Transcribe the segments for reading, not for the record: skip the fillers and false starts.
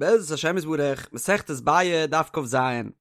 בעזרת השם יתברך, מסכת ביעא, דף כ"ז,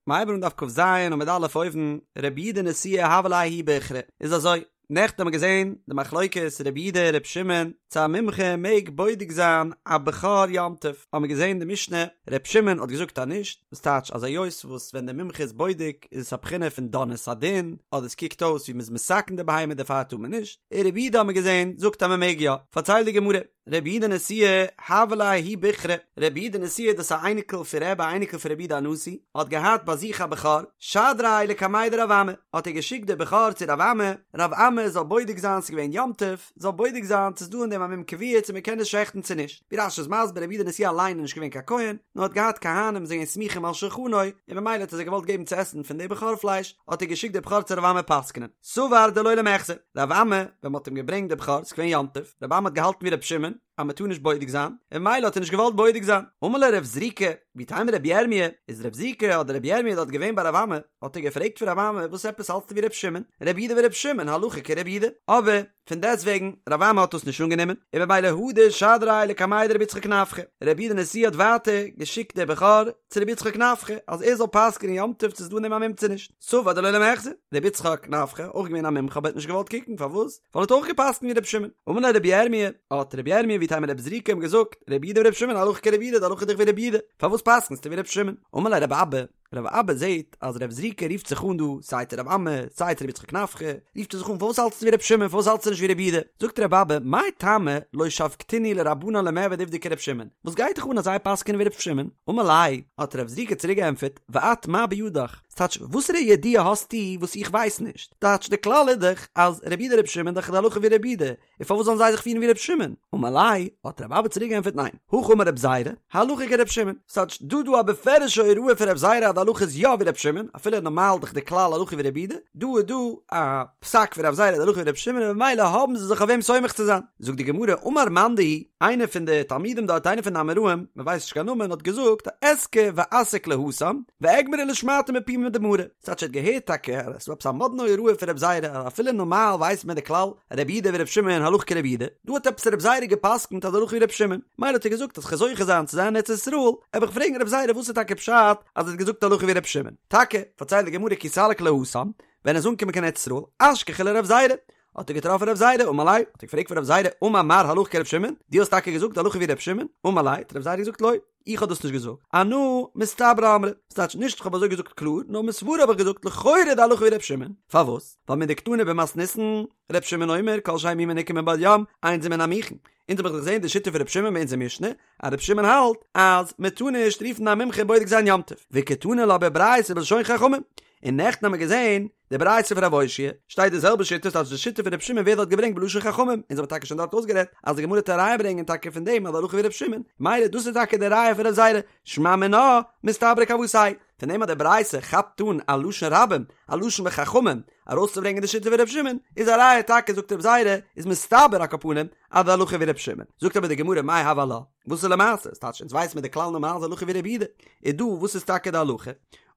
מ'הייבט אן דף כ"ז עמוד א' אויבן, רבי יהודה נשיאה הוה ליה ההוא בוכרא, איז אזוי, נעכטן האבן מיר געזען די מחלוקת רבי יהודה רבי שמעון, צו א מומחה מעג בודק זיין א בכור יום טוב, האבן מיר געזען די משנה, רבי שמעון האט געזאגט אז נישט, וואס טייטש אז היות וואס ווען די מומחה איז בודק איז עס א בחינה פון דן את הדין, אדער עס קוקט אויס ווי מ'איז מתקן די בהמה דערפאר טאר מען נישט, און רבי יהודה האבן מיר געזען זאגט אז מ'מעג יא, פארציילט די גמרא. רבי יהודה נשיאה הוה ליה ההוא בוכרא, רבי יהודה נשיאה דאס א אייניקל פון רבי א אייניקל פון רבי יהודה הנשיא, האט געהאט ביי זיך א בכור, שדריה לקמיה דרב אמי, האט ער געשיקט די בכור צו רב אמי, רב אמי זאל בודק זיין ס'איז געווען יום טוב, זאל בודק זיין צו ס'איז דא אין דעם א מום קבוע צו מ'קען עס שעכטן צו נישט, ווי רש"י איז מסביר רבי יהודה נשיאה אליין איז נישט געווען קיין כהן, נאר האט געהאט כהנים זענען סמוכים על שולחנו, און ממילא האט ער זיי געוואלט געבן צו עסן פון די בכור פלייש, האט ער געשיקט די בכור צו רב אמי פסק'נען. סבר דלא למיחזי, רב אמי, ווען מ'האט אים געברענגט די בכור, ס'איז געווען יום טוב, רב אמי האט געהאלטן ווי רבי שמעון, אז מ'טאר נישט בודק זיין, און ממילא האט ער נישט געוואלט בודק זיין. אמר ליה רב זריקא, ואיתימא רבי ירמיה, איז רב זריקא אדער רבי ירמיה דארט געווען ביי רב אמי, האט ער געפרעגט פון רב אמי, וואס עפעס האלטסטו ווי רבי שמעון, רבי יהודה ורבי שמעון, הלכה כרבי יהודה, אבער, פון דעסטוועגן, רב אמי האט דאס נישט אנגענומען, און ממילא הדר שדריה לקמיה דרבי יצחק נפחא. רבי יהודה נשיאה האט ווייטער געשיקט די בכור צו רבי יצחק נפחא, אז ער זאל פסק'נען יום טוב צו ס'איז דא אין דעם א מום צו נישט. סבר דלא למיחזי, רבי יצחק נפחא, אויך געווען א מומחה אבער האט נישט געוואלט קוקן, פארוואס? ווייל ער האט אויך געפסק'נט ווי רבי שמעון. אמר ליה רבי ירמיה, האט רבי ירמיה ואיתימא רבי זריקא אים געזאגט, רבי יהודה ורבי שמעון הלכה כרבי יהודה, די הלכה איז דאך ווי רבי יהודה, פארוואס פסק'נסטו ווי רבי שמעון? אמר ליה רבי אבא, רבי אבא זעהט אז רב זריקא רופט זיך אן דא סיי צו רב אמי סיי צו רבי יצחק נפחא, רופט ער זיך אן פארוואס האלטסטו ווי רבי שמעון פארוואס האלטסטו נישט ווי רבי יהודה? זאגט רבי אבא מאי טעמא לא שבקתינהו לרבנן למעבד עובדא כרבי שמעון, וואס גייט דיך אן אז זיי פסק'ענען ווי רבי שמעון? אמר ליה, האט רב זריקא צוריק געענטפערט, ואת מה בידך? ס'טייטש וואסערע ידיעה האסטו וואס איך ווייס נישט? טייטש די כלל איז דאך אז רבי יהודה רבי שמעון דאך די הלכה ווי רבי יהודה, און פארוואס זאלן זיי זיך פירן ווי רבי שמעון? אמר ליה, האט רבי אבא צוריק געענטפערט ניין, הכי אמר רבי זירא, הלכה כרבי שמעון, ס'טייטש דא דא א בפירוש'ע הוראה פון רבי זירא אז די הלכה איז יא ווי רבי שמעון, אפילו נארמאל דאך די כלל הלכה ווי רבי יהודה, דא איז דא א פסק פון רבי זירא אז די הלכה ווי רבי שמעון און ממילא האבן זיי זיך אויף וועם סומך צו זיין. זאגט די גמרא, אמר מאן דהוא, איינער פון די תלמידים דארט, איינער פון די אמוראים, מען ווייסט נישט קיין נאמען, האט געזאגט, אזכי ואסיק להתם, ואגמרה לשמעתא מפומיה דמרא, ס'טייטש ער האט געהערט טאקע אז עס איז דא עפעס א מאדנע הוראה פון רבי זירא אז אפילו נארמאל ווייסט מען די כלל רבי יהודה ורבי שמעון הלכה כרבי יהודה, דא האט עפעס רבי זירא געפסקנט אז הלכה ווי רבי שמעון, מילא האט ער געזאגט אז כ'וועל זוכה זיין צו זיין אין ארץ ישראל, וועל איך פרעגן רבי זירא וואס איז טאקע פשט אז ער האט געזאגט הלכה ווי רבי שמעון. טאקע, פארציילט די גמרא כי סליק להתם, ווען ער איז אנגעקומען קיין ארץ ישראל, אשכחיה לרבי זירא, האט ער געטראפן רבי זירא, אמר ליה, האט ער געפרעגט פון רבי זירא, אמר מר הלכה כרבי שמעון, דו האסט טאקע געזאגט הלכה ווי רבי שמעון? אמר ליה, האט רבי זירא געזאגט לא. איך האב דאס נישט געזאגט, אנא מסתברא אמרי, ס'טייטש נישט איך האב אזוי געזאגט קלאר, נאר מסברא האב איך געזאגט לכאורה די הלכה ווי ר' שמעון, פארוואס? ווייל מדקתני במתניתין, ר' שמעון אומר כל שאין מומו ניכר מבעוד יום, אין זה מן המוכן, אונז האב איך דאך געזען די שיטה פון ר' שמעון ביי אונזער משנה, אז ר' שמעון האלט אז מען טאר נישט רופן א מומחה בודק זיין יום טוב, וקתני לה בברייתא בלשון חכמים, און נעכטן האבן מיר געזען די ברייתא פון רב אושעיא שטייט די זעלבע שיטה ס'טייטש די שיטה פון רבי שמעון ווערט דארט געברענגט בלשון חכמים, אונז האבן טאקע שוין דארט אויסגערעדט אז די גמרא וועט א ראיה ברענגען טאקע פון דעם אז די הלכה ווי רבי שמעון, מילא דאס איז טאקע די ראיה פון רב זירא, שמע מינה מסתברא כוותיה, פון דעם אז די ברייתא כאפט אן א לשון רבים, א לשון וחכמים, ארויסצוברענגען די שיטה פון רבי שמעון, איז א ראיה טאקע זאגט רב זירא, איז מסתבר על כל פנים אז די הלכה ווי רבי שמעון, זאגט אבער די גמרא מאי הוי עלה, וואס איז למעשה, ס'טייטש אונז ווייסן מיר די כלל נארמאל איז הלכה ווי רבי יהודה, איז דא וואס איז טאקע די הלכה?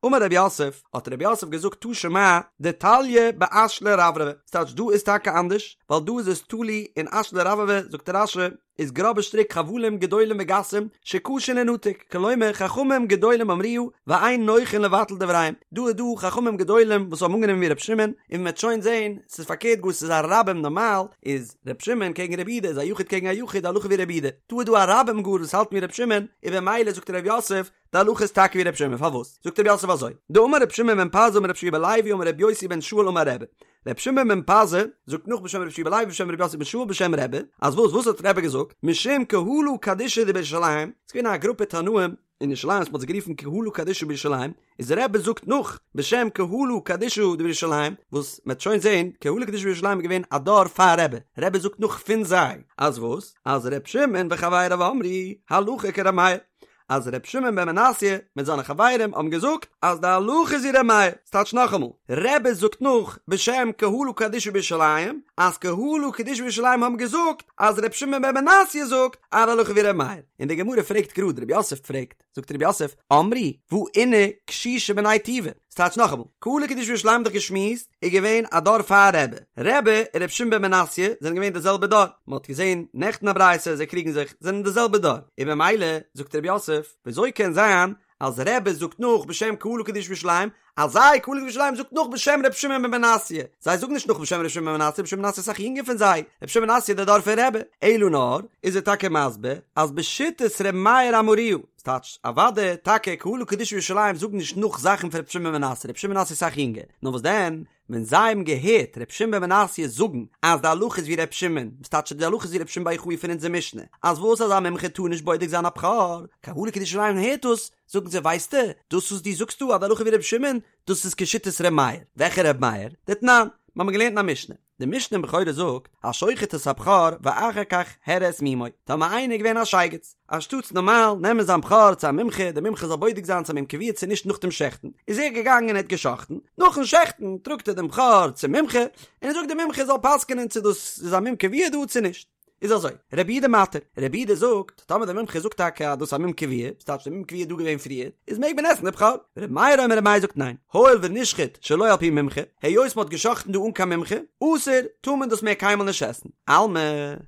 אמר רב יוסף, האט רב יוסף געזאגט תא שמע, דתליא באשלי רברבי, ס'טייטש דא איז טאקע אנדערש, ווייל דא איז עס תלוי אין אשלי רברבי, זאגט רש"י, איז גראבע שטריק חבלים גדולים וגסים, שקשה לינתק, כלומר חכמים גדולים אמרוה, ואין נוחין לבטל דבריהם, דא איז דא חכמים גדולים וואס האבן אנגענומען ווי ר' שמעון, און מ'וועט שוין זען, ס'איז פארקערט גאר ס'איז א רבים נארמאל, איז ר' שמעון קעגן ר' יהודה איז א יחיד קעגן א יחיד הלכה ווי ר' יהודה, דא איז דא א רבים גאר וואס האלטן ווי ר' שמעון, און במילא זאגט ר' יוסף, די הלכה איז טאקע ווי ר' שמעון, פארוואס? זאגט ר' יוסף אזוי, דאמר ר' שמעון בן פזי אמר ר' יהושע בן לוי אמר ר' יוסי בן שאול אמר רבי, ר' שמעון בן פזי זאגט נאך בשם ר' יהושע בן לוי בשם ר' יוסי בן שאול בשם רבי, אז וואס וואס האט רבי געזאגט? משום קהלא קדישא דבירושלים, ס'איז געווען א גרופע תנאים אין ירושלים וואס מ'האט זיי גערופן קהלא קדישא בירושלים, איז רבי זאגט נאך בשם קהלא קדישא דבירושלים, וואס מ'עט שוין זען, קהלא קדישא בירושלים איז געווען א דור פאר רבי, רבי זאגט נאך פון זיי, אז וואס? אז ר' שמעון וחבריו אמרו הלכה כר' מאיר, אז ר' שמעון בן מנסיא מיט זיינע חברים האבן געזאגט אז די הלכה איז ווי ר' מאיר, ס'טייטש נאכאמאל, רבי זאגט נאך בשם קהלא קדישא בירושלים אז קהלא קדישא בירושלים האבן געזאגט אז ר' שמעון בן מנסיא זאגט אז די הלכה ווי ר' מאיר, און די גמרא פרעגט גראד, ר' יוסף פרעגט, זאגט ר' יוסף, אמרו, והא אינהו קשישי בני טובא, ס'טייטש נאכאמאל, קהלה קדישא בירושלים האט דאך געשמועסט איז געווען א דור פאר רבי, רבי און רבי שמעון בן מנסיא זענען געווען די זעלבע דור, מ'האט געזען נעכטן א ברייתא זיי קריגן זיך, זענען די זעלבע דור, און במילא זאגט רב יוסף, וויאזוי קען זיין אז רבי זאגט נאך בשם קהלה קדישא בירושלים, אז זיי קהלה קדישא בירושלים זאגט נאך בשם רבי שמעון בן מנסיא, זיי זאגן נישט נאך בשם רבי שמעון בן מנסיא, רבי שמעון בן מנסיא איז אסאך יונגער פון זיי, רבי שמעון בן מנסיא איז דער דור פון רבי, אלא נאר איז ער טאקע מסביר אז בשיטת רבי מאיר אמרוה, ס'טייטש אוודאי טאקע קהלה קדישא בירושלים זאגן נישט נאך זאכן פון רבי שמעון בן מנסיא, רבי שמעון בן מנסיא איז אסאך יונגער, נאר וואס דען ווען זיי האבן געהערט ר' שמעון בן מנסיא זאגן אז די הלכה איז ווי ר' שמעון, וואס טייטש די הלכה איז ווי ר' שמעון בר יוחאי פון אונזער משנה, אז וואס אז א מומחה טאר נישט בודק זיין א בכור, קהלה קדישא ירושלים הערט דאס, זאגן זיי ווייסטו, דאס וואס דו זאגסט דא אז די הלכה ווי ר' שמעון, דאס איז כשיטת ר' מאיר, וועלכע ר' מאיר? דתנן, מיר האבן געלערנט אין א משנה. די משנה אין בכורות זאגט, השוחט את הבכור ואחר כך הראה את מומו, טאמער איינער איז געווען א שייגעץ, אנשטאטס נארמאל נעמען זיין בכור צו א מומחה, דער מומחה זאל בודק זיין צו א מום קבוע צו נישט נאך דעם שעכטן, איז ער געגאנגען און ער האט געשאכטן, נאכן שעכטן טראגט ער דעם בכור צום מומחה, און ער זאגט דער מומחה זאל פסק'נען צו דאס איז א מום קבוע דא צו נישט. איז אזוי, רבי יהודה מתיר, רבי יהודה זאגט, טאמער דער מומחה זאגט טאקע אז דאס איז א מום קבוע, וואס טייטש דער מום קבוע איז דא געווען פריער, איז מעג מען עסן די בכור. רבי מאיר אומר רבי מאיר זאגט ניין, הואיל ונשחט שלא על פי מומחה, היות מען האט געשחט'ן דא אן קיין מומחה, אסור, טאר מען דאס מער קיינמאל נישט עסן. אלמא,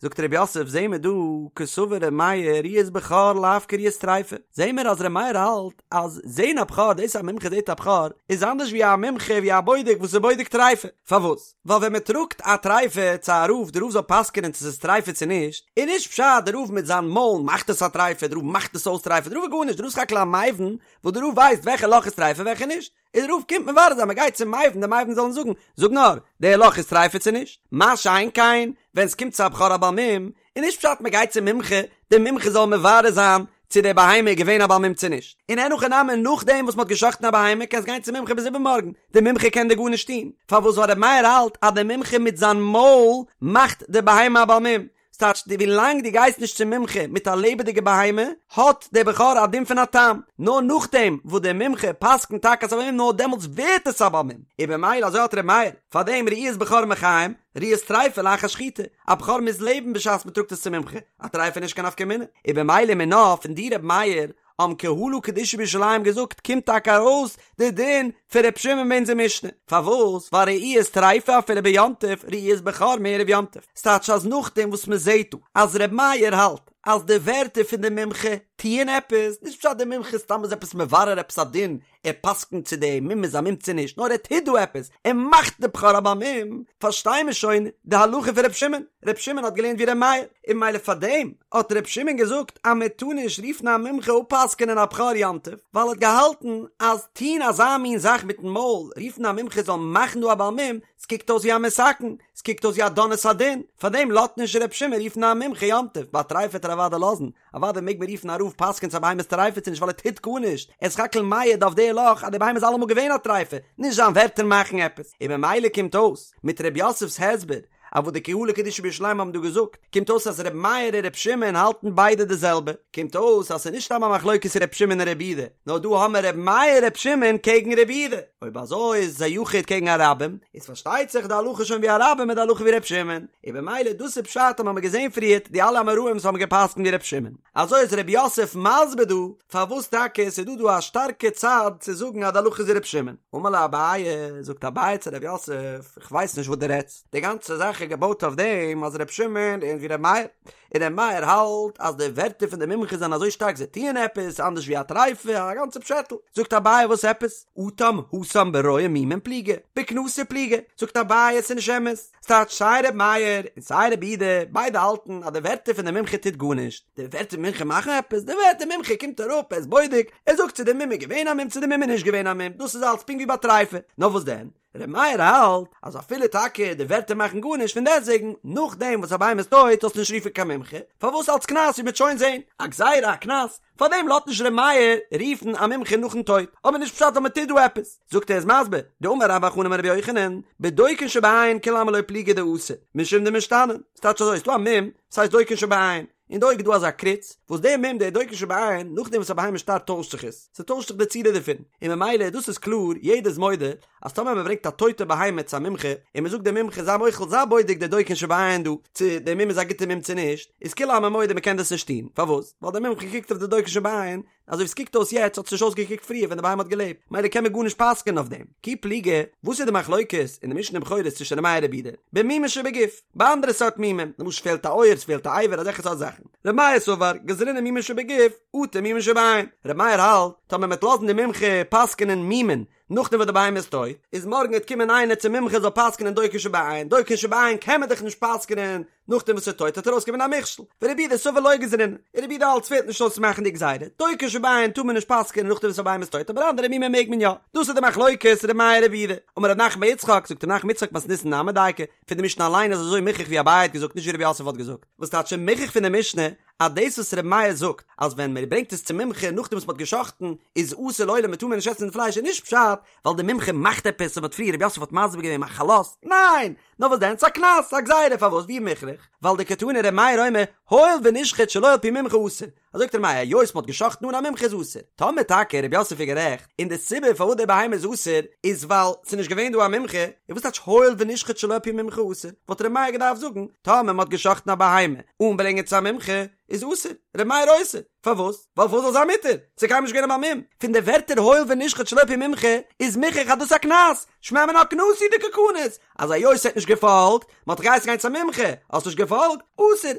זאגט רב יוסף, זעהן מיר דא, קסבר רבי מאיר ראיית בכור לאו כראיית טריפה, זעהן מיר אז רבי מאיר האלט אז זעהן א בכור, דאס אז א מומחה זעהט א בכור, איז אנדערש ווי א מומחה ווי א בודק וואס איז בודק טריפה. פארוואס? ווייל ווען מען טראגט א טריפה צו א רב די רב זאל פסק'נען צו ס'איז טריפה צו נישט, איז נישט פשט די רב מיט זיין מויל מאכט עס א טריפה, די רב מאכט עס אויס טריפה, די רב איז גארנישט, די רב איז סך הכל א מבין וואס די רב ווייסט וועלכע לאך איז טריפה וועלכע נישט, און די רב קומט מברר זיין מען גייט צום מבין די מבין זאל אים זאגן, זאג נאר, די לאך איז טריפה צו נישט? מה שאין כן ווען ס'קומט צו א בכור א בעל מום, איז נישט פשט מען גייט צום מומחה, דער מומחה זאל מברר זיין צו די בהמה איז געווען א בעל מום צו נישט, און אין הכי נמי נאכדעם וואס מען האט גע'שחט'ן א בהמה קענסט גיין צום מומחה ביז איבערמארגן, דער מומחה קען דיר גארנישט טון, פארוואס ווייל ר' מאיר האלט אז דער מומחה מיט זיין מויל מאכט די בהמה א בעל מום, ס'טייטש די ווילאנג דו גייסט נישט צום מומחה מיט א לעבעדיגע בהמה האט דער בכור א דין פון א תם, נאר נאכדעם וואס דער מומחה פסק'נט טאקע אז ס'איז א בעל מום נאר דעמאלטס ווערט עס א בעל מום, און במילא אזוי האלט ר' מאיר, פארדעם ראיית בכור מחיים, ראיית טריפה לאחר שחיטה, א בכור מוז לעבן בשעת מען טראגט עס צום מומחה, א טריפה איז נישט קיין נפקא מינה, און במילא מינה פון די ר' מאיר האבן קהלא קדישא בירושלים געזאגט קומט טאקע ארויס די דין פון ר' שמעון אין אונזער משנה, פארוואס ווייל ראיית טריפה אפילו ביום טוב ראיית בכור מערב יום טוב, ס'טייטש אז נאכדעם וואס מען זעט דא אז ר' מאיר האלט אז די ווערטער פון די מומחה טוען עפעס, נישט פשט די מומחה סתם איז עפעס מברר עפעס א דין ער פסק'נט צו די מום איז א מום צו נישט, נאר ער טוט דא עפעס, ער מאכט די בכור א בעל מום, פארשטיי מיר שוין די הלכה פון ר' שמעון, ר' שמעון האט געלערנט ווי ר' מאיר, און ממילא פארדעם האט ר' שמעון געזאגט אז מען טאר נישט רופן א מומחה אפפסק'ענען א בכור יום טוב, ווייל ער האט געהאלטן אז טוהן אזא מין זאך מיטן מויל, רופן א מומחה זאל מאכן דא א בעל מום, ס'קוקט אויס ווי א מתקן, ס'קוקט אויס ווי א דן את הדין, פארדעם לאזט נישט ר' שמעון רופן א מומחה יום טוב, ביי טריפה וועט ער אוודאי לאזן, אוודאי מעג מען רופן א רב פסק'ען צו א בהמה איז טריפה צו נישט ווייל ער טוט גארנישט, ער איז סך הכל מעיד אויף די לאך אז די בהמה איז אלעמאל געווען א טריפה, נישט זיין ווערטער מאכן עפעס, און ממילא קומט אויס, מיט ר' יוסף'ס הסבר, אויף וואס די קהלא קדישא בירושלים האבן דא געזאגט, קומט אויס אז ר' מאיר און ר' שמעון האלטן ביידע די זעלבע, קומט אויס אז ס'איז נישט סתם א מחלוקת ר' שמעון און ר' יהודה, נאר דא האמער ר' מאיר ר' שמעון קעגן ר' יהודה, אויב אזוי איז עס א יחיד קעגן א רבים, איז פארשטייט זיך די הלכה שוין ווי א רבים איז די הלכה ווי ר' שמעון. און במילא דאס איז פשט אז מ'האמיר געזען פריערט די אלע אמוראים וואס האבן געפסקנט ווי ר' שמעון. אזוי איז ר' יוסף מסביר דא פארוואס טאקע ס'איז דא דא א שטארקע צד צו זאגן אז די הלכה איז ווי ר' שמעון. אמר ליה אביי, זאגט אביי צו ר' יוסף, איך ווייס נישט וואס דו רעדסט, די גאנצע זאך איז געבויט אויף דעם אז ר' שמעון לערנט ווי ר' מאיר, און ר' מאיר האלט אז די ווערטער פון די מומחה זענען אזוי שטארק זיי טוען עפעס אנדערש ווי א טריפה, א גאנצע פשעטל. זאגט אביי וואס עפעס? אטם התם ברואה מומין פליגי, בקנסא פליגי. זאגט אביי עס איז נישט אמת. ס'טייטש סיי ר' מאיר און סיי ר' יהודה ביידע האלטן אז די ווערטער פון די מומחה טוט גארנישט. די ווערטער מומחה מאכן עפעס? די ווערטער מומחה קומט אראפ ער איז בודק, ער זאגט צו די מום איז געווען א מום צו די מום איז נישט געווען א מום, דאס איז אלץ פונקט ווי ביי טריפה. נאר וואס דען? ר' מאיר האלט אז אפילו טאקע די ווערטער מאכן גארנישט פון דעסטוועגן נאכדעם וואס א בהמה איז טויט זאלסטו נישט רופן קיין מומחה, פארוואס אלץ קנס ווי מ'וועט שוין זען, א גזירה א קנס, פארדעם לאזט נישט ר' מאיר רופן א מומחה נאכן טויט, אבער נישט פשט אז מ'טוט דא עפעס, זאגט ער איז מסביר, דאמר רבה בר בר חנה אמר רבי יוחנן, בדוקין שבעין כולי עלמא לא פליגי דאסור, משום דמשתנין, ס'טייטש אזוי, ס'דא א מום, ס'הייסט דוקין שבעין, אין די אויג איז דא אזא קריץ, וואס דער מום דער דוקין שבעין, נאכדעם וואס א בהמה שטארבט טוישט זיך עס, ס'טוישט זיך די צורה דערפון, און ממילא דאס איז קלאר, יעדער איז מודה, אז טאמער מען ברענגט א טויטע בהמה צו א מומחה, און מען זאגט דעם מומחה זיי מוחל זיי בודק דער דוקין שבעין דא, צו דער מום איז א גוטע מום צו נישט, איז כולי עלמא מודה מען קען דאס נישט טון, פארוואס? ווייל דער מומחה קוקט אויף די דוקין שבעין, אזוי ווי ס'קוקט אויס יעצט האט עס נישט אויסגעקוקט פריער ווען די בהמה האט געלעבט, מילא קען מען גארנישט פסק'ענען אויף דעם. כי פליגי, וואס איז די מחלוקת אין די משנה אין בכורות צווישן ר' מאיר רבי יהודה? במומין שבגוף, ביי אנדערע סארט מומים, למשל ס'פעלט א אויער, ס'פעלט א אבר, אזעלכע סארט זאכן. ר' מאיר סבר, גזרינן מומין שבגוף, אטו מומין שבעין. ר' מאיר האלט, טאמער מ'וועט לאזן די מומחה פסק'ענען מומין נאכדעם וואס די בהמה איז טויט, איז מארגן וועט קומען איינער צום מומחה זאל פסק'נען דוקר שבעין, דוקר שבעין קען מען דאך נישט פסק'נען נאכדעם וואס ס'איז טויט וועט ארויסקומען א מכשול, ורבי יהודה סבר לא גזרינן, און רבי יהודה האלט ס'פעלט נישט אויס צו מאכן די גזירה, דוקר שבעין טאר מען נישט פסק'נען נאכדעם וואס א בהמה איז טויט אבער אנדערע מומים מעג מען יא, דאס איז די מחלוקת ר' מאיר רבי יהודה, אמר רב נחמן בר יצחק, זאגט רב נחמן יצחק מתניתין נמי דייקא, פון די משנה אליין איז אזוי מוכח ווי אביי האט געזאגט נישט ווי רב יוסף האט געזאגט, וואס טייטש מוכח פון די משנה אז דאס וואס ר' מאיר זאגט אז ווען מען ברענגט עס צום מומחה נאכדעם וואס מען האט גע'שחט'ן איז אסור לעולם מען טאר מער נישט עסן די פלייש איז נישט פשט ווייל די מומחה מאכט עפעס און מען האט פריער רב יוסף האט מסביר געווען מחלות, ניין! נאר וואס דען ס'איז א קנס א גזירה פארוואס ווי מוכרח ווייל דקתני ר' מאיר אומר הואיל ונשחט שלא על פי מומחה אסור אזוי זאגט ר' מאיר היות מען האט גע'שחט'ן אן א מומחה איז אסור טאמער טאקע רב יוסף איז גערעכט און די סיבה פארוואס די בהמה איז אסור איז ווייל ס'איז נישט געווען דא א מומחה און וואס טייטש הואיל ונשחט שלא על פי מומחה אסור וואלט ר' מאיר געדארפט זאגן טאמער מען האט גע'שחט'ן א בהמה אן ברענגען צו א מומחה איז אסור, ר' מאיר אוסר, פארוואס? ווייל פארוואס זאל זיין מותר? ס'איז קיינמאל נישט געווען א בעל מום. פון די ווערטער הואיל ונשחט שלא על פי מומחה איז מוכח אז דאס איז א קנס, שמע מינה קנסא הוא דקא קניס, אז היות ער האט נישט געפאלגט, מען האט דיך געהייסן גיין צו א מומחה, האסט נישט געפאלגט, אסור,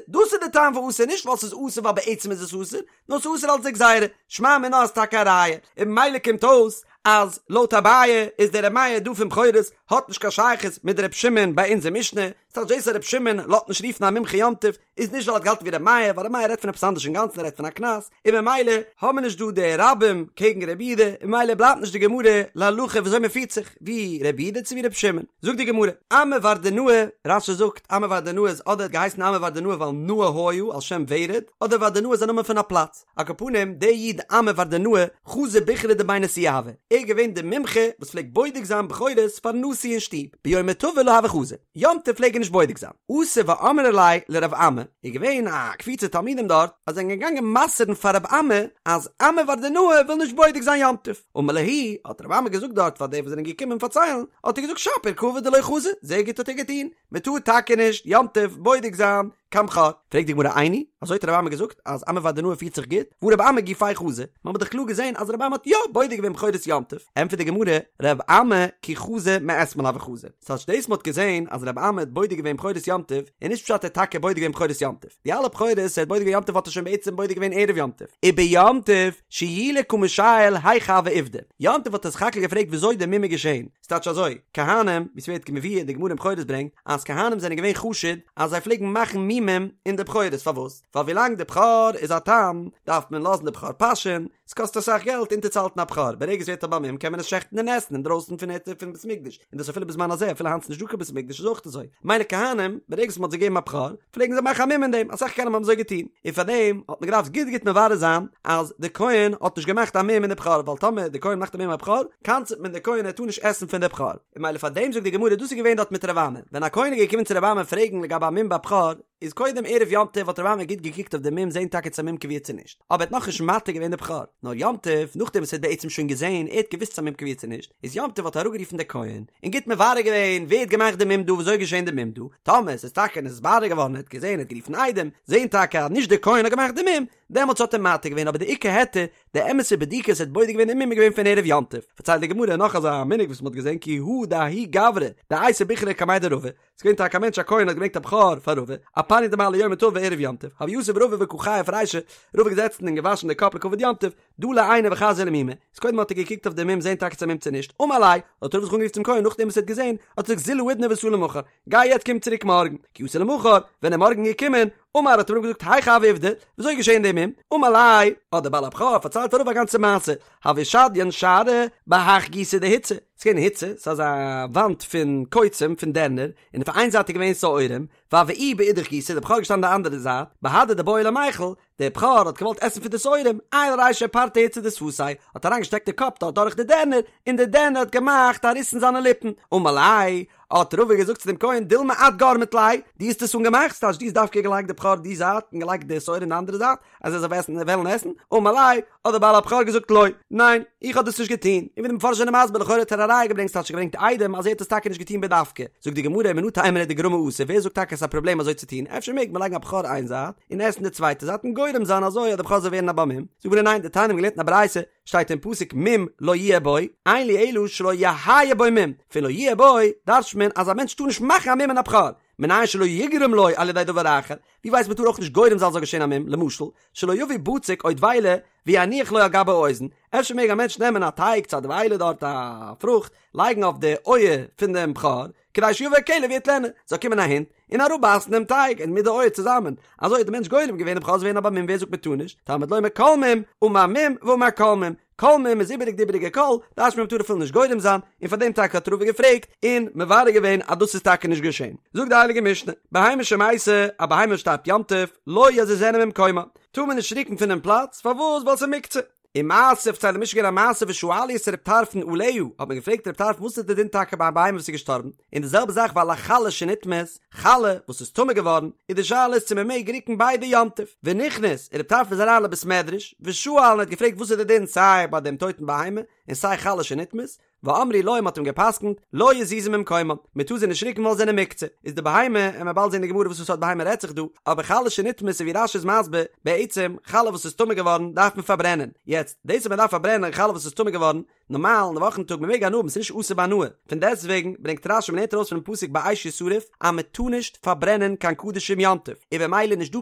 דאס איז די טעם פון אסור, נישט ווייל ס'איז אסור ווייל בעצם איז עס אסור, נאר ס'איז אסור אלס די גזירה, שמע מינה איז טאקע א ראיה, און ממילא קומט אויס אז לויט אביי איז דער ר' מאיר דא פון בכורות האט נישט קיין שייכות מיט ר' שמעון ביי אונזער משנה, ס'טייטש דאס אז ר' שמעון לאזט נישט רופן א מומחה יום טוב איז נישט ווייל ער האט געהאלטן ווי ר' מאיר, ווייל ר' מאיר רעדט פון עפעס אנדערש אינגאנצן ער רעדט פון א קנס, און ממילא האבן מיר נישט דא די רבים קעגן רבי יהודה, און ממילא בלייבט נישט די גמרא להלכה וויאזוי מען פירט זיך, ווי רבי יהודה צו ווי רבי שמעון. זאגט די גמרא, אמי ורדנאה, רש"י זאגט, אמי ורדנאה איז אדער האט געהייסן אמי ורדנאה ווייל נאה היה על שם ורד, אדער ורדנאה איז א נאמען פון א פלאץ. על כל פנים, דער איד אמי ורדנאה, חזי בכרא דבי נשיאה הוה, ער איז געווען דער מומחה וואס פלעגט בודק זיין בכורות פארן נשיא אין שטוב, ביומא טבא לא הוה חזי, יום טוב פלעג ער נישט בודק זיין. אתו ואמרו ליה לרב אמי, איז געווען א קבוצה תלמידים דארט, אז זענען געגאנגען מסר'ן פאר רב אמי אז אמי ורדנאה וויל נישט בודק זיין יום טוב. אמר להו, האט רב אמי געזאגט דארט פאר די וואס זענען געקומען פארציילן, האט ער געזאגט שפיר קא עביד דלא חזי, זייער גוט האט ער געטון, מען טאר טאקע נישט יום טוב בודק זיין קיין בכור. פרעגט די גמרא איני, אזוי האט רב אמי געזאגט אז אמי ורדנאה פירט זיך גוט, והא רב אמי גופיה חזי, מען האט דאך קלאר געזען אז רב אמי האט יא בודק געווען בכורות יום טוב, ענטפערט די גמרא, רב אמי כי חזי מאתמול הוה חזי, ס'טייטש דאס מען האט געזען אז רב אמי האט בודק געווען בכורות יום טוב, איז נישט פשט ער האט טאקע בודק געווען בכורות יום טוב, די אלע בכורות ער האט בודק געווען יום טוב האט ער שוין בעצם בודק געווען ערב יום טוב, וביום טוב שיולי קא משייל היכי הוה עובדא, יום טוב האט ער סך הכל געפרעגט וויאזוי די מום איז געשען, ס'טייטש אזוי, כהנים, ווי ס'ווערט מבואר די גמרא אין בכורות ברענגט, אז כהנים זענען געווען חשוד אז זיי פלעגן מאכן מומים אין די בכורות, פארוואס? ווייל ווילאנג די בכור איז א תם, דארף מען לאזן די בכור פאשען, ס'קאסט אסאך געלט אונטערצוהאלטן א בכור, ברגע ס'ווערט א בעל מום קען מען עס שעכטן און עסן אינדרויסן פון היתר פון בית מקדש, און דאס אפילו בזמן הזה, אפילו היינט ס'נישט דא קיין בית מקדש איז אויך אזוי, מילא כהנים, ברגע וואס מ'האט זיי געגעבן א בכור, פלעגן זיי מאכן א מום אין דעם, אסאך כהנים האבן אזוי געטון, און פארדעם האט מען געדארפט גוט גוט מברר זיין אז די כהן האט נישט געמאכט א מום אין די בכור, ווייל טאמער די כהן מאכט א מום אין א בכור, קנס'ט מען די כהן ער טאר נישט עסן פון די בכור, און מילא פארדעם זאגט די גמרא דאס איז געווען דארט מיט רב אמי, ווען א כהן איז געקומען צו רב אמי פרעגן לגבי א מום ביי בכור, איז קודם ערב יום טוב האט רב אמי גוט געקוקט אויף די מום זען טאקע צו א מום קבוע צו נישט, אבער ער האט נאכנישט מתיר געווען די בכור, נאר יום טוב נאכדעם וואס ער האט בעצם שוין געזען, ער האט געוואוסט צו א מום קבוע צו נישט, איז יום טוב האט ער אראפגערופן די כהן, און גוט מברר געווען ווער האט געמאכט די מום דא וויאזוי איז געשען די מום דא, טאמער עס איז טאקע נתברר געווארן ער האט געזען ער האט גערופן עדים, זען טאקע אז נישט די כהן האט געמאכט די מום, דעמאלטס האט ער מתיר געווען אבער די עיקר היתר, די אמת'ע בדיקה וואס ער האט בודק געווען די מום איז געווען פון ערב יום טוב, פארציילט די גמרא נאך אזא מנהג וואס מען האט געזען כי הא דההוא גברא דאייתי בכרא קמיה דרבא, ס'איז געווען טאקע א מענטש א כהן האט געברענגט א בכור פאר רבא, אפניא דמעלי יומא טבא ערב יום טוב, הוה יתיב רבא וקא חייף רישיה, רבא געזעצן און געוואשן די קאפ לכבוד יום טוב, דלי עיניה וחזייה למומא, איז קודם האט ער געקוקט אויף די מום זען טאקע צו א מום צו נישט, אמר ליה, האט רבא זיך אנגערופט צום כהן נאכדעם וואס ער האט געזען, האט ער געזאגט זיל האידנא ותא למחר, גיי יעצט קום צוריק מארגן, כי אתא למחר, ווען ער מארגן געקומען, אמר האט רבא געזאגט היכי הוה עובדא, וויאזוי איז געשען די מום, אמר ליה, האט דער בעל הבכור פארציילט פאר רבא א גאנצע מעשה, הוה שדיין שערא בהך גיסא דהיצא, ס'איז געווען היצא, ס'איז אזא וואנט פון קוצים, פון דערנער, און אויף איין זייט איז געווען שעורים, והוה איהו באידך גיסא, דער בכור איז געשטאנען די אנדערע זייט, בהדי דבעי למיכל, דער בכור האט געוואלט עסן פון די שעורים, עייל רישיה פרטיה היצא דשפתיה, האט אריינגעשטעקט די קאפ דארט דורך די דערנער, און די דערנער האט געמאכט א ריס אין זיינע ליפן, אמר ליה, האט רבא געזאגט צו דעם כהן, דילמא את גרמת ליה, דו האסט עס אנגעמאכט, ס'טייטש דו האסט דווקא געלייגט די בכור די זייט און געלייגט די שעורים די אנדערע זייט, אז ער זאל עסן וועלן עסן, אמר ליה, האט דער בעל הבכור געזאגט לא, ניין, איך האב דאס נישט געטון, און ווי די מפרשים זענען מסביר לכאורה האט ער א ראיה געברענגט ס'טייטש געברענגט עדים אז ער האט עס טאקע נישט געטון בדווקא, זאגט די גמרא מנא תימרא דגרמא אסור ווער זאגט טאקע עס איז א פראבלעם אזוי צו טון אפשר מעג מען לייגן א בכור איין זייט און עסן די צווייטע זייט און גורם זיין אזוי אז די בכור זאל ווערן א בעל מום, זאגט די גמרא ניין דתניא מ'האט געלערנט אין א ברייתא שטייט אין פסוק מום לא יהיה בו, אין לי אלא שלא יהא בו מום, פון לא יהיה בו דרש'ט מען אז א מענטש טאר נישט מאכן א מום אין א בכור, מנין שלא יגרום לו על ידי דבר אחר, ווי ווייסט מען טאר אויך נישט גורם זיין זאל געשען א מום, למשל, שלא יביא בצק או דבילה ויניח לו על גבי האוזן, אפשר מעג א מענטש נעמען א טייג צו א דבילה דארט א פרוכט, לייגן אויף די אויער פון דעם בכור, כדי שיבוא הכלב ויטלנה, זאל קומען א הונט און אראפבייסן דעם טייג און מיט די אויער צוזאמען, אזוי האט דער מענטש גורם געווען דער בכור זאל ווערן א בעל מום, ווער זאגט מען טאר נישט, תלמוד לומר כל מום, אמר מום ואמר כל מום, כל מום איז איבעריג די איבעריגע כל, דרש'נט מען מ'טאר אפילו נישט גורם זיין, און פאר דעם טאקע האט רבא געפרעגט און מברר געווען אז דאס איז טאקע נישט געשען. זאגט די הייליגע משנה, בהמה שמתה, א בהמה וואס שטארבט יום טוב, לא יזיזנה ממקומה, טאר מען נישט רוקן פונעם פלאץ, פארוואס? ווייל ס'איז מוקצה. ומעשה פארציילט די משנה געווען א מעשה ושאלו את ר' טרפון עליה, האט מען געפרעגט ר' טרפון וואס איז די דין טאקע ביי א בהמה וואס איז געשטארבן, און די זעלבע זאך ועל החלה שנטמאת, חלה וואס איז טמא געווארן, איז די שאלה איז צו מען מעג רוקן ביידע יום טוב, ונכנס, און ר' טרפון איז אריין לבית מדרש, ושאל און האט געפרעגט וואס איז די דין סיי ביי דעם טויטן בהמה, און סיי חלה שנטמאת, ואמרו לו מ'האט אים געפסקנט, לא יזיזו ממקומם, מ'טאר זיי נישט רוקן ווייל זיי זענען מוקצה, איז די בהמה, און מ'וועט באלד זען אין די גמרא וואס פאר סארט בהמה רעדט זיך דא, אבער חלה שנטמאת איז ווי רש"י איז מסביר, בעצם, חלה וואס איז טמא געווארן דארף מען פארברענען, יעצט, דאס אז מ'דארף פארברענען חלה וואס איז טמא געווארן, נארמאל אין די וואכן טאג מ'מעג הנאה האבן ס'איז נישט אסור בהנאה, פון דעסטוועגן ברענגט רש"י מ'לערנט ארויס פונעם פסוק באש ישרף אז מ'טאר נישט פארברענען קיין קדשים יום טוב, און במילא נישט דא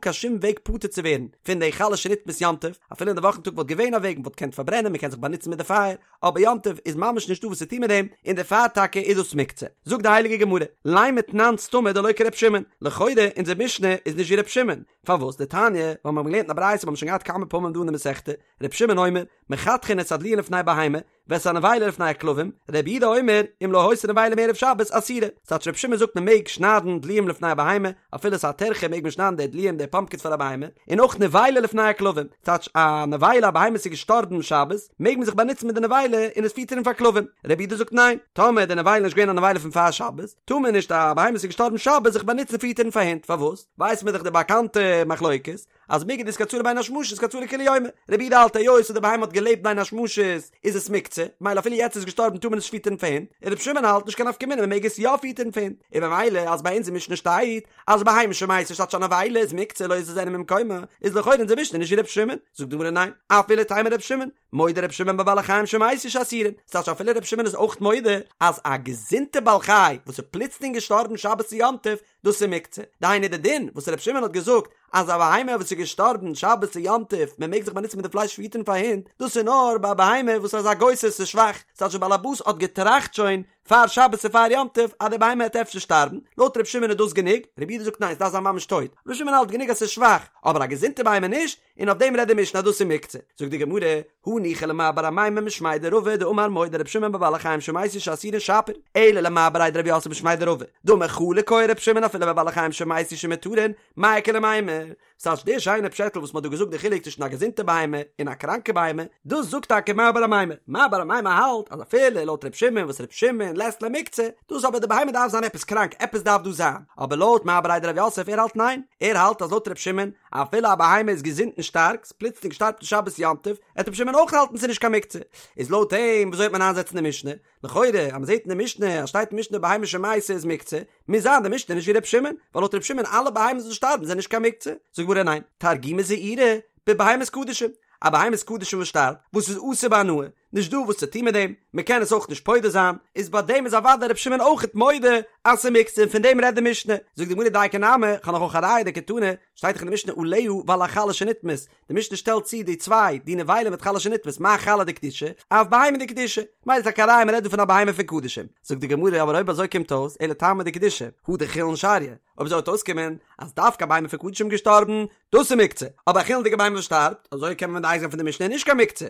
קיין שום וועג פטור צו ווערן פון די חלה שנטמאת יום טוב, אפילו אין די וואכן טאג וואלט געווען א וועג מ'וואלט געקענט פארברענען מ'קען זיך באנוצן מיט די פייער, אבער יום טוב איז ממש נישטא וואס צו טון מיט דעם, און דערפאר טאקע איז דאס מוקצה. זאגט די הייליגע גמרא, לימא תנן סתמא דלא כר' שמעון, לכאורה אונזער משנה איז נישט ווי ר' שמעון, פארוואס? דתניא, ווייל מיר האבן געלערנט אין א ברייתא, מיר האבן שוין געהאט כמה פעמים דא אין די מסכתא, ר' שמעון אומר, מחתכין את הדלועין לפני בהמה, ואת הנבילה לפני הכלבים, ר' יהודה אומר, אם לא היתה נבילה מערב שבת אסורה. ס'טייטש ר' שמעון זאגט מען מעג שניידן דלועים לפני הבהמה, אפילו ס'איז א טרחה מעג מען שניידן די דלועים די פאמפקינס פאר א בהמה, און אויך נבילה לפני הכלבים, ס'טייטש א נבילה א בהמה איז געשטארבן שבת, מעג מען זיך באנוצן מיט די נבילה און עס פיטערן פאר כלבים. ר' יהודה זאגט ניין, טאמער די נבילה איז נישט געווען א נבילה פון פאר שבת, טאר מען נישט א בהמה וואס איז געשטארבן שבת זיך באנוצן פיטערן פאר הינט, פארוואס? ווייסט מען דאך די באקאנטע מחלוקת, אז מיגו דאיתקצאי לבין השמשות איתקצאי לכולי יומא, רבי יהודה האלט היות אז די בהמה האט געלעבט בין השמשות איז עס מוקצה, ממילא אפילו יעצט איז געשטארבן טאר מען עס נישט פיטערן פאר הינט, און רבי שמעון האלט נישט קיין נפקא מינה מען מעג עס יא פיטערן פאר הינט, און במילא אז ביי אונז אין משנה שטייט אז בהמה שמתה ס'טייטש א נבילה איז מוקצה לא יזיזנה ממקומה, איז לכאורה אונזער משנה נישט ווי רבי שמעון, זאגט די גמרא ניין, אפילו תימא רבי שמעון, מודה רבי שמעון בבעלי חיים שמתו שאסורין, ס'טייטש אפילו רבי שמעון איז אויך מודה אז א געזונטע בעל חי וואס איז פלוצלינג געשטארבן שבת צו יום טוב דאס איז מוקצה, דהיינו די דין וואס רבי שמעון האט געזאגט אז א בהמה וואס איז געשטארבן שבת צו יום טוב מען מעג זיך באנוצן מיט די פלייש פיטערן פאר הינט, דאס איז נאר ביי א בהמה וואס איז א גוסס איז שוואך, ס'טייטש די בעל הבית האט געטראכט שוין פאר שבת צו פאר יום טוב אז די בהמה העט אפשר שטארבן, לויט רבי שמעון איז דאס גענוג, רבי יהודה זאגט ניין ס'דארף זיין ממש טויט, רבי שמעון האלט גענוג אז ס'איז שוואך, אבער א געזונטע בהמה נישט, און אויף דעם רעדט די משנה אז דאס איז מוקצה. זאגט די גמרא, הניחא למר בר אמימר משמיה דרבא דאמר מודה רבי שמעון בבעלי חיים שמתו שאסורין שפיר, אלא למר בריה דרב יוסף משמיה דרבא דאמר חלוק היה רבי שמעון אפילו בבעלי חיים שמתו שמותרין, מאי איכא למימר. ס'טייטש די שיינע פשעטל וואס מ'האט דא געזאגט די חילוק צווישן א געזונטע בהמה און א קראנקע בהמה, דאס זאגט טאקע מר בר אמימר. מר בר אמימר האלט אז אפילו לויט רבי שמעון וואס רבי שמעון לית ליה מוקצה, דאס אבער די בהמה דארף זיין עפעס קראנק, עפעס דארף דא זיין. אבער לויט מר בריה דרב יוסף ער האלט ניין, ער האלט אז לויט רבי שמעון אפילו א בהמה איזגעזונט און שטארק, ס'פלוצלינג שטארבט עס שבת יום טוב, עט רבי שמעון אויך האלטן ס'איז נישט קיין מוקצה. איז לויט אים וויאזוי וועט מען איינזעצן די משנה? לכאורה אז מ'זעט אין די משנה אז שטייט אין משנה בהמה שמתה איז מוקצה, מוז זיין די משנה נישט ווי רבי שמעון, ווייל לויט רבי שמעון אלע בהמות וואס שטארבן זענען נישט קיין מוקצה. זאגט גמרא ניין, תרגומא זעירא בבהמת קדשים, א בהמת קדשים וואס שטארבט, וואס איז אסור בהנאה, נישט דא וואס צו טון מיט דעם, מען קען עס אויך נישט פודה זיין, איז ביי דעם איז אוודאי רבי שמעון אויכעט מודה אז ס'איז מוקצה און פון דעם רעדט די משנה. זאגט די גמרא דייקא נמי, כ'האב נאך אויך א ראיה דקתני, שטייט דאך אין די משנה עליה ועל החלה שנטמאת, די משנה שטעלט צו די צוויי, די נבילה מיט חלה שנטמאת, מה חלה דקדישא, אף בהמה דקדישא, ממילא איז טאקע א ראיה מען רעדט דא פון א בהמה פון קדשים. זאגט די גמרא אבער אויב אזוי קומט אויס אלא טעמא דקדישא, הא דחולין שריא, אויב אזוי וועט אויסקומען אז דווקא א בהמה פון קדשים געשטארבן, דאס איז מוקצה, אבער א חולין'דיגע בהמה וואס שטארבט, אזוי קען מען מדייק זיין פון די משנה איז נישט קיין מוקצה.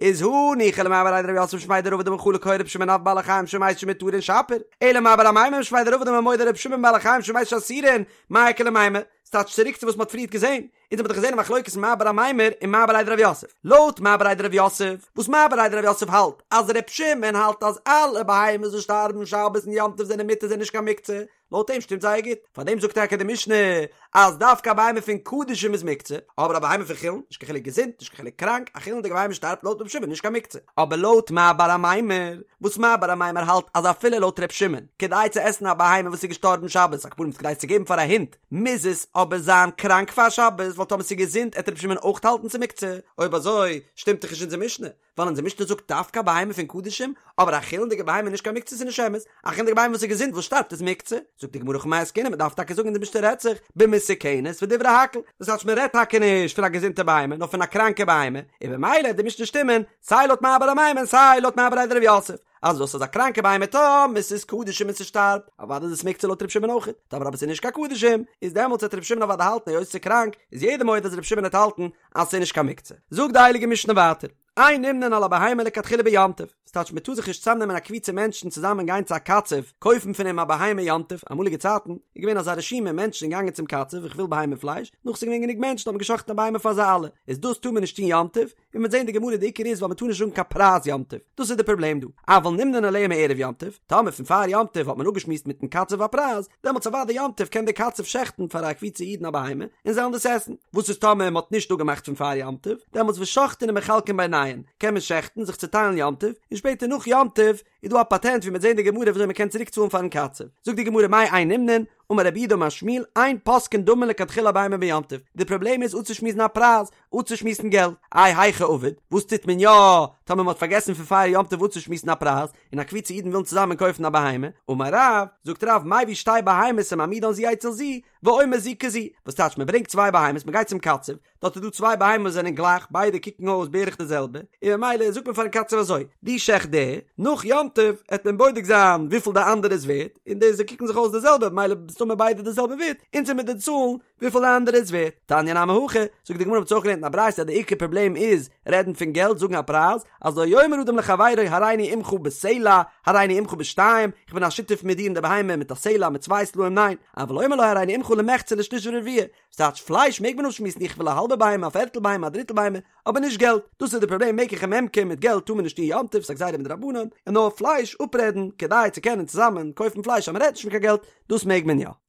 איז הניחא למר בריה דרב יוסף משמיה דרבא דאמר חלוק היה רבי שמעון אף בבעלי חיים שמתו שמותרין שפיר, אלא מר בר אמימר משמיה דרבא דאמר מודה רבי שמעון בבעלי חיים שמתו שאסורין, מאי איכא למימר? ס'טייטש צוריק צו וואס מ'האט פריערט געזען, אונז האבן דאך געזען א מחלוקת מר בר אמימר און מר בריה דרב יוסף. לויט מר בריה דרב יוסף, וואס מר בריה דרב יוסף האלט אז ר' שמעון האלט אז אלע בהמות וואס שטארבן שבת און יום טוב זענען מותר זענען נישט קיין מוקצה, לויט אים שטימט זייער גוט, פארדעם זאגט טאקע די משנה אז דווקא א בהמה פון קדשים איז מוקצה, אבער א בהמה פון חולין, נישט קיין חילוק געזונט, נישט קיין חילוק קראנק, א חולין'דיגע בהמה שטארבט לויט ר' שמעון נישט קיין מוקצה. אבער לויט מר בר אמימר, וואס מר בר אמימר האלט אז אפילו לויט ר' שמעון, כדי צו עסן א בהמה וואס איז געשטארבן שבת, על כל פנים כדי עס צו געבן פאר א הונט, מוז עס אבער זיין קראנק פאר שבת, ווייל טאמער ס'איז געזונט עט ר' שמעון אויך האלטן ס'איז מוקצה, אויב אזוי שטימט דאך נישט אונזער משנה, ווייל אונזער משנה זאגט דווקא א בהמה פון קדשים, אבער א חולין'דיגע בהמה איז נישט קיין מוקצה ס'איז נישט אמת, א חולין'דיגע בהמה וואס איז געזונט וואס שטארבט איז מוקצה, זאגט די גמרא הכא במאי עסקינן מ'דארף טאקע זאגן אונזער משנה רעדט זיך במסוכנת ודברי הכל, דאס הייסט מ'רעדט טאקע נישט פון א געזונטע בהמה נאר פון א קראנקע בהמה, און במילא וועט די משנה שטימען סיי לויט מר בר אמימר און סיי לויט מר בריה דרב יוסף. אז דאס איז א קראנקע בהמה טאמער ס'איז קדשים און ס'שטארבט, אוודאי איז עס מוקצה לויט ר' שמעון אויכעט, טאמער אבער ס'איז נישט קיין קדשים, איז דעמאלטס וועט ר' שמעון אוודאי האלטן היות ס'איז קראנק, איז יעדער מודה אז ר' שמעון וועט האלטן אז ס'איז נישט קיין מוקצה. זאגט די הייליגע משנה ווייטער, אין נמנין על הבהמה לכתחילה ביום טוב, ס'טייטש מ'טאר זיך נישט צוזאמנעמען א קבוצה מענטשן צוזאמען גיין צו א קצב קויפן פון אים א בהמה יום טוב, אמאליגע צייטן איז געווען אזא רשימה מענטשן זענען געגאנגען צום קצב איך וויל בהמה פלייש, נאך ס'איז געווען גענוג מענטשן האט מען גע'שחט'ן א בהמה פאר זיי אלע, איז דאס טאר מען נישט טון יום טוב, און מ'וועט זען די גמרא די עיקר איז ווייל מ'טאר נישט זאגן קיין פרייז יום טוב, דאס איז די פראבלעם דא, אבל נמנין עליה מערב יום טוב, טאמער פון פאר יום טוב האט מען אפגעשמועסט מיטן קצב א פרייז, דעמאלטס אוודאי יום טוב קען דער קצב שעכטן פאר א קבוצה אידן א בהמה און זיי וועלן דאס עסן, וואס איז טאמער מ'האט נישט אפגעמאכט פון פאר יום טוב, דעמאלטס ושוחטין ומחלקין ביניהן, קען מען שעכטן, זיך צוטיילן יום טוב, און שפעטער נאך יום טוב איז דא א פאטענט ווי מ'וועט זען די גמרא וויאזוי מ'קען צוריק צאלן פארן קצב, זאגט די גמרא מאי אין נמנין, אמר רב יהודה אמר שמואל, אין פוסקין דמים לכתחילה בהמה ביום טוב, די פראבלעם איז אפצושמועסן א פרייז, אפצושמועסן געלט, איי היכי עביד, וואס טוט מען יא טאמער מ'האט פארגעסן פון פאר יום טוב אפצושמועסן א פרייז, און א קבוצה אידן ווילן צוזאמען קויפן א בהמה, אמר רב, זאגט רב, מביא שתי בהמות ומעמידן זו אצל זו, ואומר זו כזו, וואס טייטש מ'ברענגט צוויי בהמות, מ'גייט צום קצב, דארט איז דא צוויי בהמות וואס זענען גלייך, ביידע קוקן אויס בערך די זעלבע, און ממילא זאגט מען פארן קצב אזוי, דו שעכט די, נאך יום טוב עט מען בודק זיין וויפיל די אנדערע איז ווערט, און די זיי קוקן זיך אויס די זעלבע, ממילא מסתמא ביידע די זעלבע ווערט, אונז עמיר דיר צאלן וויפיל די אנדערע איז ווערט. תניא נמי הכי, זאגט די גמרא מ'האט אויך געלערנט אין א ברייתא אז די עיקר פראבלעם איז רעדן פון געלט, זאגן א פרייז, אז לא יאמר אדם לחבירו הריני עמך בסלע, הריני עמך בשתיים, איך בין א שותף מיט דיר אין די בהמה מיט א סלע מיט צוויי סלעים ניין, אבל אומר לו הריני עמך למחצה לשליש ולרביע, ס'טייטש פלייש מעג מען אפשמועסן איך וויל א האלבע בהמה א פערטל בהמה א דריטל בהמה, אבער נישט געלט, דאס איז די פראבלעם מקח וממכר מיט געלט טאר מען נישט טון יום טוב ס'איז א גזירה מדרבנן, און נאר פלייש אפרעדן כדי צו קענען צוזאמען קויפן פלייש אז מ'רעדט נישט פון קיין געלט, דאס מעג מען יא.